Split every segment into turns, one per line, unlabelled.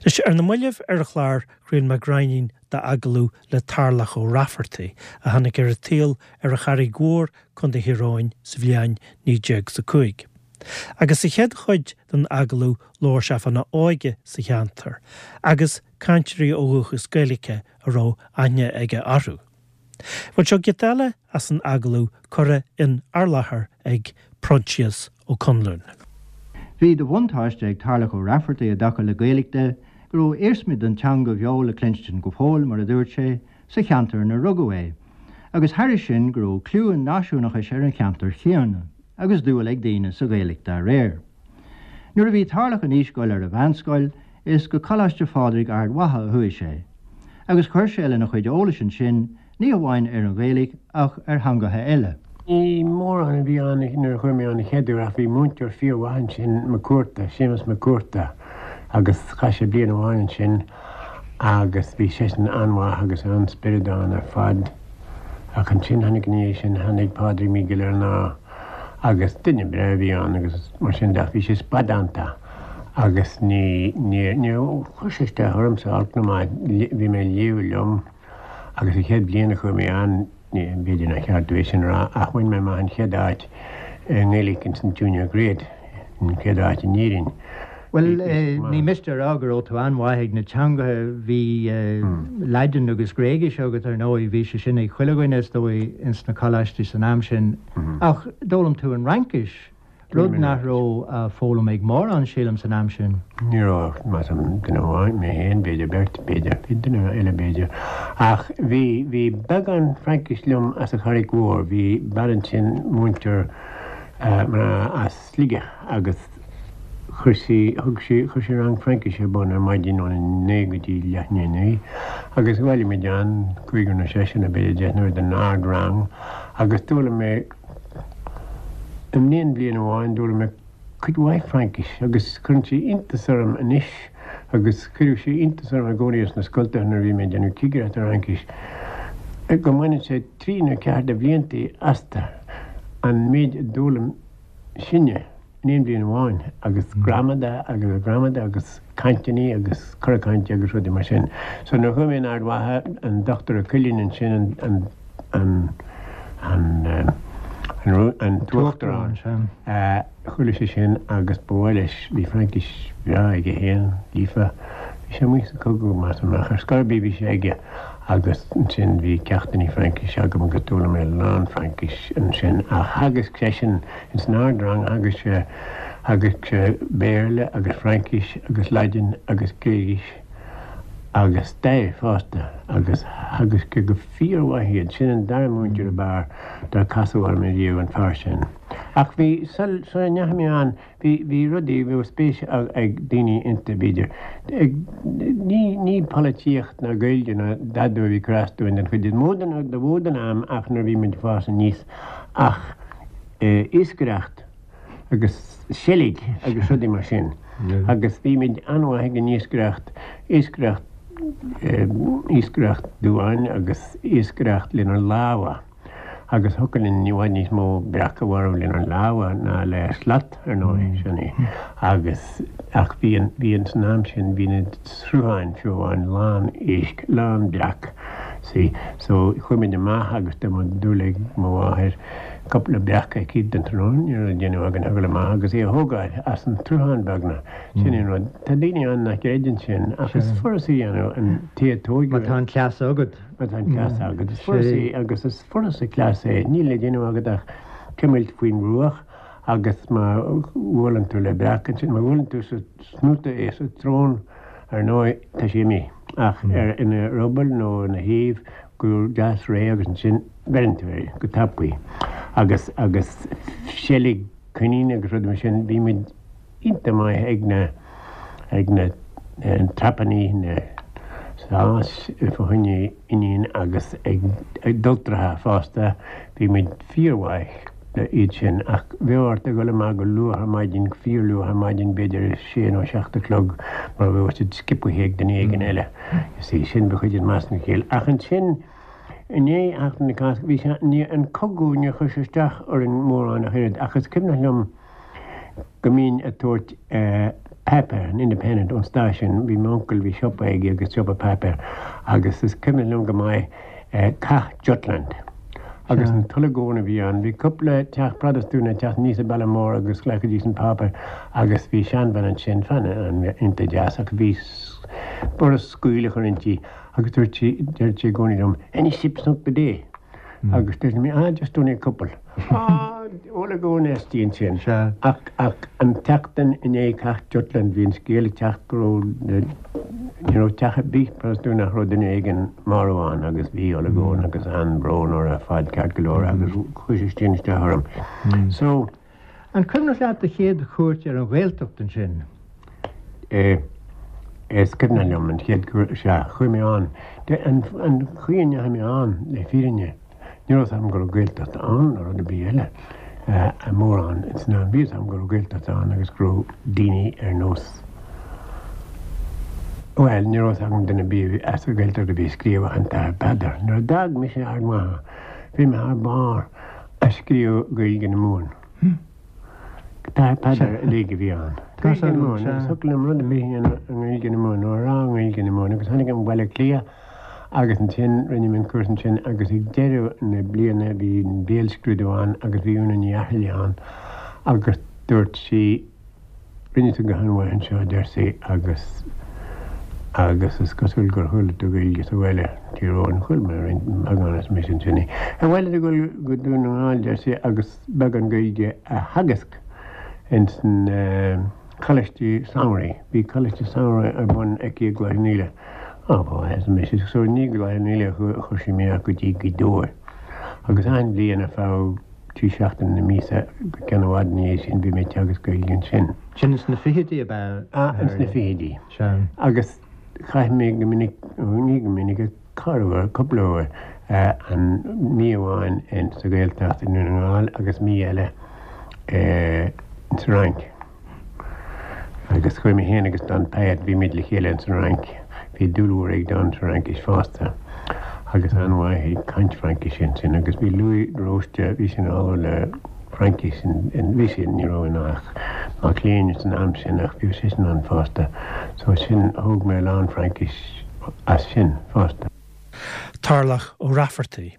Anois, ar na mallaibh ar an chlár, chraol mé gráinnín d'agallamh le Tarlach Ó Raifeartaigh, a tháinig ar an tsaol ar an Charraig Mhór, Co. Thír Eoghain, sa bhliain 1905. Agus sa chéad chuid den agallamh labhair sé fána óige sa cheantar, agus cainteoirí ó dhúchas Gaeilge a raibh aithne aige orthu. Bhuel, seo giota eile as an agallamh curtha in ár láthair ag Proinsias Ó Conluain.
Bhí de bhuntáiste ag Tarlach Ó Raifeartaigh i dtaca le Gaeilge de go raibh iarsmaí den teanga bheo le cluinstin go fóill, mar a dúirt sé, sa cheantar inar rugadh é, agus thairis sin go raibh cliú an náisiúnachais ar an cheantar chéanna agus dúil ag daoine sa Ghaeilge dá réir. Nuair a bhí Tarlach in aois dul ar an mheánscoil, is go Coláiste Phádraig Ard Mhacha a chuaigh sé, agus chuir sé lena chuid eolais ansin, ní hamháin ar an Ghaeilge ach ar theangacha eile.
Ní mórán a bhí ann nuair a chuaigh mé ann an chéad uair ach bhí múinteoir fíormhaith ansin, Mac Cuarta, Séamus Mac Cuarta, agus chaith sé bliain amháin ansin agus bhí seisean an-mhaith agus an-spiorad ann ar fad. Ach ansin tháinig ina dhiaidh sin, tháinig Pádraig Mac Giollarnáth agus duine breá a bhí ann agus mar sin de ach bhí sé spadánta agus ní, níor, níor chuir sé isteach ormsa olc ná maith, bhí mé ag léamh liom agus an chéad bhliain a chuaigh mé ann, ní, b'fhéidir nár cheart domh é sin a rá ach bhain mé amach an chéad áit i nGaeilge ins an Junior Grade, an chéad áit in Éirinn.
Bhuel, ní miste a rá go raibh tú an-mhaith ag na teangacha, bhí Laidin agus Gréigis agat ar ndóigh, bhí sé sin ag chuile dhuine is dóigh ins na coláistí san am sin, ach d'fhoghlaim tú an Fhraincis, rud nach raibh á foghlaim ag mórán, sílim, san am sin.
Ní raibh, measaim, duine amháin, mé féin, b'fhéidir beirt, b'fhéidir, bhí duine eile b'fhéidir, ach bhí, bhí beagán Fraincis liom as an Charraig Mhór, bhí bean ansin, múinteoir mná as Sligeach agus chuir sí, thug sí, chuir sí rang Fraincise ar bun ar maidin óna 9 go dtí leath i ndiaidh 9 agus bhailigh muid ann, cúigear nó seisear nó b'fhéidir deichniúr den ard-rang agus d'fhoghlaim mé in aon bhliain amháin, d'fhoghlaim mé cuid mhaith Fraincise agus cuireann sé iontas orm anois agus chuireadh sé iontas orm i gcónaí sna scoltacha nuair a bhí mé ag déanamh cigireacht ar Fhraincis go mbaineann sé trí nó ceathair de bhliantaí astu an méid a d'fhoghlaim sinne in aon bhliain amháin agus gramadach agus gramadach agus cainteanna agus cora cainte agus rudaí mar sin. So nuair a chuaigh mé in Ard Mhacha, an Dochtúir Ó Cuilinn ansin, an, an, an, an, an tUachtarán, chuala sé sin agus ba mhaith leis, bhí Fraincis bhreá aige féin, líofa, bhí sé amuigh sa chogadh, measaim, ach ar scor ar bith bhí sé aige agus ansin bhí ceachtanna Fraincise agam agus d'fhoghlaim mé a lán Fraincis ansin ach theagasc seisean ins an ard-rang, theagasc sé, theagasc sé Béarla agus Fraincis agus Laidin agus Gréigis agus stair fosta agus theagasc sé go fíormhaith iad. Sin an dara múinteoir ab fhearr dár casadh orm ariamh, an fear sin. Ach bhí, sula ndeachaigh mé ann, Bhí, bhí rudaí, bhí spéis ag daoine iontu, b'fhéidir. Ag, ní, ní polaitíocht ná Gaeilge ná dada a bhí ag cur as dúinn den chuid is mó den, de mhó den am ach nuair a bhí muid ag fás aníos ach iascaireacht agus seilg agus rudaí mar sin. Agus bhí muid an-mhaith ag an iascaireacht, iascaireacht, iascaireacht duáin agus iascaireacht lenár lámha. Agus thiocfadh linn i bhfad níos mó breac a mharú lenár lámha ná le slat, ar ndóigh, sin é. Agus, ach bhí an, bhí an, san am sin, bhí na srutháin, fiú amháin, lán éisc, lán breac, see. So, chuaigh muid amach agus dá mbeadh dúil ag mo mháthair cúpla breac aici don tráthnóna, ní raibh le déanamh againn ach a dhul amach agus é a thógáil as an tsruthán beagnach. Sin é an rud. Tá daoine ann nach gcreideann sin, ach is furasta a dhéanamh, an té a tóigeadh.
Má tá an cleas agat.
Má tá an cleas agat, is furasta é agus is furasta cleas é. Níl le déanamh agat ach cuimilt faoin mbruach agus má bhuaileann tú le breac ansin, má bhuaileann tú sa snoota é, sa tsrón, ar ndóigh, tá sé imithe. Ach ar ina ruball nó ina thaobh go deas réidh agus ansin beireann tú air go tapaidh. Agus, agus seilg coinín agus rudaí mar sin, bhí muid. iontach maith ag na ag na trapannaí, na sáis fá choinne oinnín agus ag adhaltracha fosta, bhí muid fíormhaith le iad sin ach bheadh ort a dhul amach go luath ar maidin, go fíorluath ar maidin, b'fhéidir a sé nó 7 a chlog mar bheadh siad sciobtha ag duine éigin eile. You see, sin ba chuid den meascán Ach ansin i ndiaidh Sheachtain na Cásca, bhí sé, ní, an cogadh, níor chuir sé isteach orainn mórán ach oiread ach is cuimhneach liom, go mbínn ag tabhairt. Páipéar, an Independent, ón stáisiún, bhí m'uncail, bhí siopa aige agus siopa páipéir agus is cuimhin liom go maith Cath Jutland agus an t-olagón a bhí ann. Bhí cúpla teach Protastúnach ag teacht aníos an bealach mór agus ghlacaidís an páipéar agus bhí seanbhean ansin, bean iontach deas ach bhí borradh scaoll a chur inti agus dúirt sí, deireadh sí i gcónaí liom, any ships sunk today? Agus dúirt mé, ah, just only a couple. Ah, olagón aisti ansin.
Sea.
Ach, ach an tseachtain i ndiaidh Cath Jutland bhí an scéal ag teacht go raibh, ní raibh teach ar bith Protastúnach nach raibh duine éigin marbh ann agus bhí olagón agus an-bhrón orthu ar fad ceart go leor agus chuir sé sin isteach orm. So.
An cuimhneach leat do chéad chuairt ar an Ghaeltacht ansin?
Eh, is cuimhneach liom an chéad chuairt, sea, chuaigh mé ann. An chaoi a ndeachaigh mé ann, le fírinne, ní raibh 's agam go raibh Gaeltacht ann nó rud ar bith eile mórán san am. Bhí 'fhios agam go raibh Gaeltacht ann agus go raibh daoine ar nós, bhuel, ní raibh 'fhios agam duine ar bith as an Ghaeltacht a bhí ag scríobh ach an tAthair Peadar. Nuair a d'fhág mise Ard Mhacha, bhí mé thar barr ag scríobh Gaeilge na Mumhan. An tAthair Peadar uilig a bhí ann. Gaeilge na Mumhan agus thiocfadh liom rud ar bith a dhéanamh i nGaeilge na Mumhan nó a rá i nGaeilge na Mumhan agus tháinig mé Baile Átha Cliath agus ansin rinne mé an cúrsa ansin agus ag deireadh na bliana bhí an béalscrúdú ann agus bhí Úna Ní Fhaircheallaigh ann agus dúirt sí Rinne tú go han-mhaith anseo, a deir sí, agus, agus is cosúil gur chuala tú Gaeilge sa bhaile, Tír Eoghain. Chuala mé roinnt, beagán arsa mise ansin. Ar mhaith leat a dhul go Dún na nGall, deir sí, agus beagán Gaeilge a theagasc ins na coláistí samhraidh. Bhí coláiste samhraidh ar bun aici i gCloich Cheann Fhaola. Á, ba mhaith, arsa mise. So ní go Cloich Cheann Fhaola a chuir sí mé ach go dtí Gaoth Dobhair. Agus achan bhliain ar feadh. 3 seachtaine na míosa go ceann i bhfad ina dhiaidh sin bhí mé ag teagasc Gaeilge ansin.
Sin ins na fichidí ab ea?
Ah, ins na fichidí.
Sea.
Agus chaith mé go minic, ní go minic, ach corruair, cúpla uair, an mí amháin in sa Ghaeltacht i nDún na nGall agus mí eile ins an Fhrainc. Agus chuaigh mé féin agus Don Pyett, bhí muid le chéile ins an Fhrainc. Bhí dúil mhór ag Don sa Fhraincis fosta agus an-mhaith ag caint Fraincise ansin. Agus bhí Louis de Róiste, bhí sé ina ollamh le Fraincis, bhí sé, ní raibh ann ach mac léinn san am sin ach bhí seisean ann fosta. So sin, thóg mé a lán Fraincis as sin fosta.
Tarlach Ó Raifeartaigh.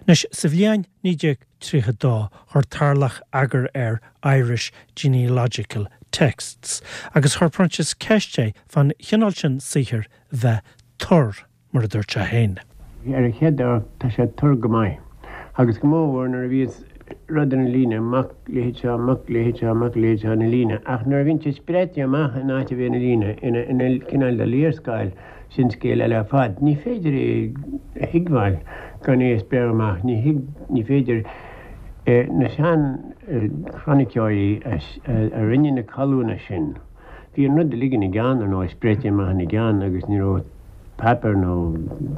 Anois, sa bhliain 1932 chuir Tarlach eagar ar Irish Genealogical Texts agus chuir Proinsias ceist é fán chineál sin saothair bheith tur, mar a dúirt sé féin.
Ar an chéad amharc tá sé tur go maith, agus go mórmhór nuair a bhíos rud ina líne, mac leithéid seo, mac leithéid seo, mac leithéid seo ina líne, ach nuair a bhíonn sé spréite amach in áit a bheith ina líne, ina cineál de léarscáil, Sin scéal eile ar fad. Ní féidir é a thuigbheáil gan é a spréadh amach. Ní thig, ní féidir. Na sean-chroiniceoirí a rinne na colúin sin, bhí an rud uilig ina gceann, ar ndóigh, spréite amach ina gceann agus ní raibh páipéar nó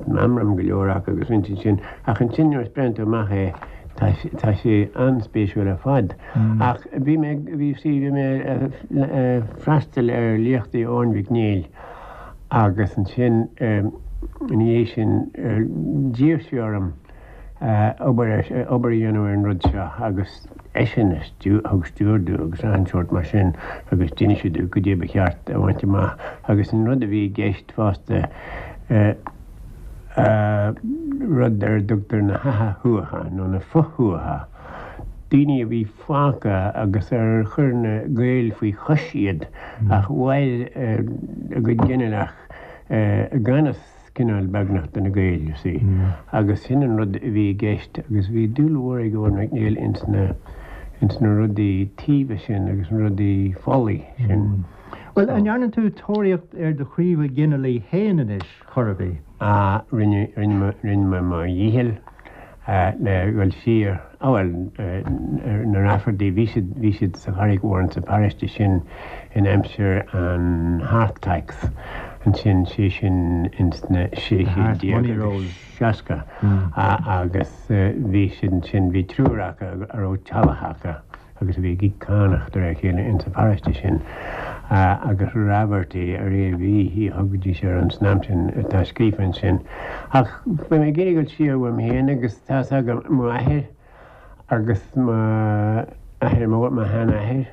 meamram go leor acu agus rinne siad sin. Ach ansin nuair a spréann tú amach é, tá, tá sé an-spéisiúil ar fad. Ach bhí mé, bhí, see, bhí mé ag freastal ar léachtaí Eoin Mhic Néill, Agus ansin ina dhiaidh sin d'iarr sé orm obair obair a dhéanamh ar an rud seo agus eisean a thug stiúir domh agus achan sórt mar sin agus d'inis sé domh goidé ba cheart a bhaint amach agus an rud a bhí i gceist fosta rud ar a dtugtar na hatha-thuatha nó na fo-thuatha, daoine a bhí fágtha agus ar chuir na Gaeil faoi chois iad ach mhair a gcuid ginealach i gan fhios cineál beagnach do na Gaeil, you see. Agus sin an rud a bhí i gceist agus bhí dúil mhór ag Eoin Mac Néill ins na, ins na rudaí taoibhe sin agus na rudaí folaigh sin.
Bhuel, an ndearna tú tóraíocht ar do chraobha ginealaigh féin anois, chor ar bith?
Ah, rinne, rinne mé, rinne mé mo dhícheall. le dhul siar, á bhuel, na Rafferty, bhí siad, bhí siad sa Charraig Mhór insa pharóiste sin in aimsir an hearth tax ansin, sé sin ins na 1660 agus bhí siad ansin, bhí triúr acu a raibh teallach acu. agus a bhí ag íoc cánach de réir a chéile insa pharóiste sin, agus Raverty ar a bhí, a thugaidís air an san am sin, atá scríofa ansin. Ach bhí mé ag iarraidh dul siar uaim féin agus tá's agam, m'athair agus m'athair mór, mo sheanathair,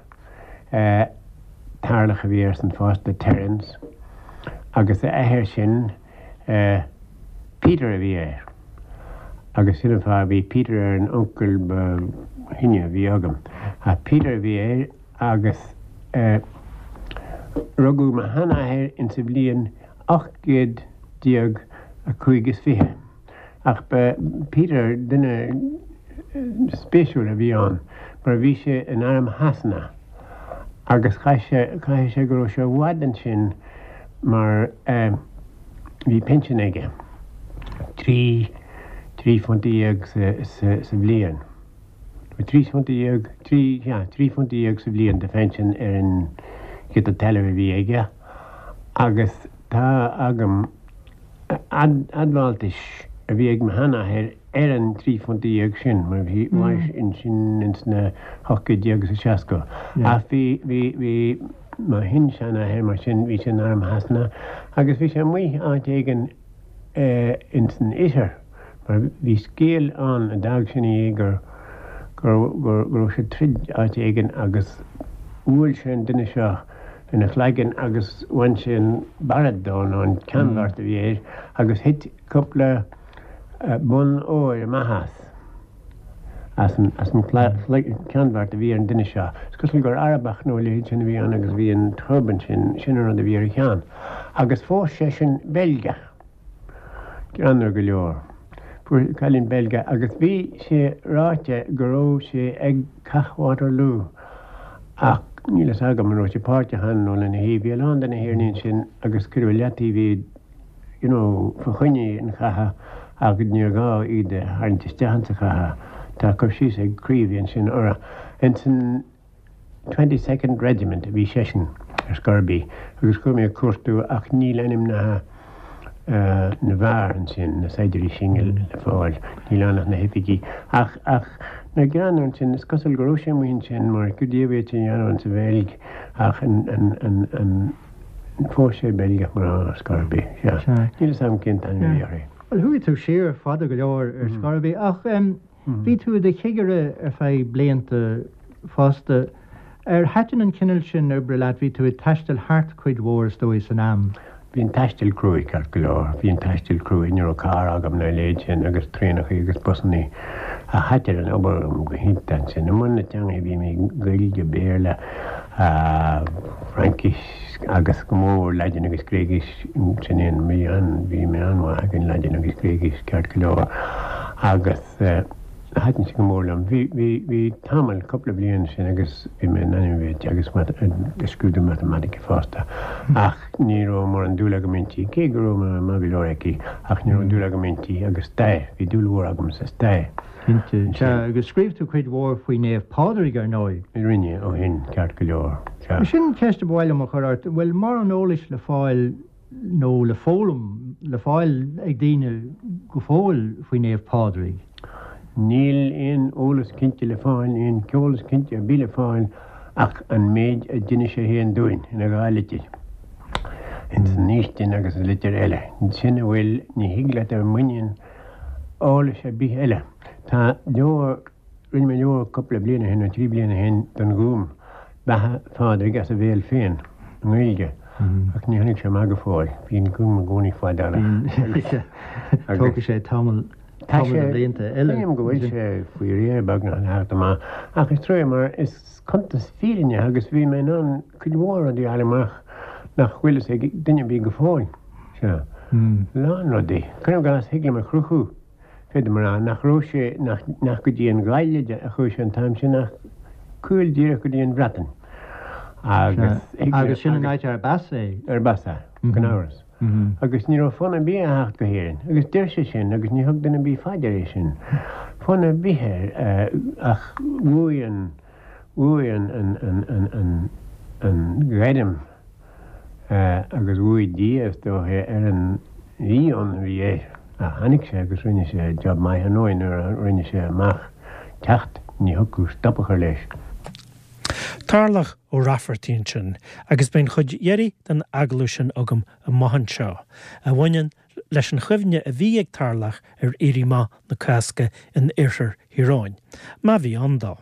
eh. Tarlach a bhí airsean fosta, Terence, agus a athair sin, Peter a bhí air. Agus sin an fáth, bhí Peter ar an uncail ba shine a bhí agam. Ach Peter a bhí air agus rugadh mo sheanathair insa bhliain 1825. Ach ba Peter duine spéisiúil a bhí ann mar bhí sé in arm Shasana agus chaith sé, caithfidh sé go raibh sé i bhfad ansin mar bhí pinsean aige, £13 sa, sa, sa bhliain. £13, trí, sea, £13 sa bhliain de phinsean ar an ghiota talaimh a bhí aige agus tá agam, admháltais a bhí ag mo sheanathair ar an £13 sin, mar bhí sin ins na hocht gcéad déag is a seasca. Ach bhí, bhí, bhí mo shin-seanathair mar sin, bhí sé in arm Shasana agus bhí sé amuigh áit éigin ins an oirthear mar bhí scéal ann a d'fhág sin é gur, gur, gur, go raibh sé ag troid áit éigin agus bhuail sé an duine seo ina chlaigeann agus bhain sé an barret dó nó an ceannbheart a bhí air agus thit cúpla bonn óir amach as, as an, as an ceannbheart a bhí ar an duine seo. Is cosúil gur Arabach nó a leithéid sin a bhí ann agus bhí an turban sin, sin an rud a bhí ar a cheann. Agus phós seisean Beilgeach. Greannmhar go leor. Fuair cailín Beilgeach agus bhí sé ráite go raibh sé ag Cath Waterloo ach níl fhios agam an raibh sé páirteach ann nó lena thaobh. Bhí a lán de na hÉireannaigh ansin agus cuireadh i leataobh iad you know fa choinne an chatha ach níor ghá iad a tharraingt isteach insa chatha. Tá cur síos ag Creevy ansin orthu. Insan. Twenty Second Regiment a bhí seisean ar scor ar bith agus chuaigh mé ag cuartú ach níl ainmneacha na bhfear ansin, na saighdiúirí sin le fáil, níl ann ach na hoifigí. Ach, ach na greannmhar ansin, is cosúil go raibh sé amuigh ansin mar goidé a bhí sé a dhéanamh insa Bheilg ach an, an, an, an, phós sé Beilgeach mná ar scor ar bith, sea. Níl fhios agam cén t-ainm a bhí uirthi.
Bhuel, chuaigh tú siar fada go leor ar scor ar bith ach. Bhí tú i do chigire ar feadh blianta fosta. Ar thaitin an cineál sin oibre leat? Bhí tú ag taisteal thart cuid mhór, is dóigh, san am.
Bhí an taisteal cruaidh, ceart go leor. Bhí an taisteal cruaidh. Ní raibh carr agam ná a leithéid sin agus traenachaí agus busannaí. Ach thaitin an obair liom go hiontach ansin. I mbun na teangacha bhí mé, Gaeilge, Béarla, Fraincis agus go mór Laidin agus Gréigis. Sin é an, bhí an, bhí mé an-mhaith ag an Laidin agus Gréigis ceart go leor agus. Thaitin sé go mór liom. Bhí, bhí, bhí tamall, cúpla bliain ansin agus bhí mé in ainm a bheith ag teagasc mat, ag scrúdú matamaitice fosta. Ach ní raibh mórán dúil agam inti, cé go raibh mé maith go leor aici, ach ní raibh dúil agam inti agus stair, bhí dúil mhór agam sa stair.
Cinnte. Sea, agus scríobh tú cuid mhór faoi Naomh Pádraig, ar ndóigh.
Rinne, ó shin, ceart go leor.
Sea. Sin ceist a ba mhaith liom a chur ort, an bhfuil mórán eolais le fáil nó le foghlaim, le fáil ag daoine go fóill faoi Naomh Pádraig?
Níl aon eolas cinnte le fáil, aon eolas cinnte ar bith le fáil ach an méid a d'inis sé féin dúinn ina dhá litir, ins an fhaoistin agus sa litir eile. Sin a bhfuil, ní thig leat dul i muinín eolais ar bith eile. Tá leabhar. Rinne mé leabhar cúpla bliain ó shin, nó 3 bliana ó shin, don Ghúm, Beatha Phádraig as a bhéal féin, i nGaeilge, ach ní tháinig sé amach go fóill. Bíonn an Gúm i gcónaí fadálach.
Tógfaidh sé tamall, tamall de bhlianta eile.
Sílim go bhfuil sé faoi réir beagnach le theacht amach, ach is trua mar is cuntas fírinneach agus bhí mé in ann cuid mhór rudaí a fháil amach nach bhfuil fhios ag duine ar bith go fóill. Sea. Lán rudaí. Cuirim i gcás, thig liom a chruthú. Féadaim a rá nach raibh sé, nach, nach go dtí an Ghaillimh a chuaigh sé an t-am sin ach caol díreach go dtí an Bhreatain.
Agus, Agus sin an áit arb as é.
Arb as é, gan amhras. Agus ní raibh fonn ar bith air a theacht go hÉirinn. Agus deir sé sin agus ní thug duine ar bith fá dear é sin. Fonn ar bith air ach bhuaigh an, bhuaigh an, an, an, an, an, an ghairm. Agus bhuaigh Dia, is dóiche, ar an mhí-fhonn a bhí air. Ach tháinig sé agus rinne sé job maith ar ndóigh nuair a rinne sé amach teacht, ní thiocfadh stop a chur leis.
Tarlach Ó Raifeartaigh ansin, agus beidh an chuid dheiridh den agallamh sin agam amach anseo, a bhaineann leis an chuimhne a bhí ag Tarlach ar Éirí Amach na Cásca in oirthear Thír Eoghain, má bhí ann dó.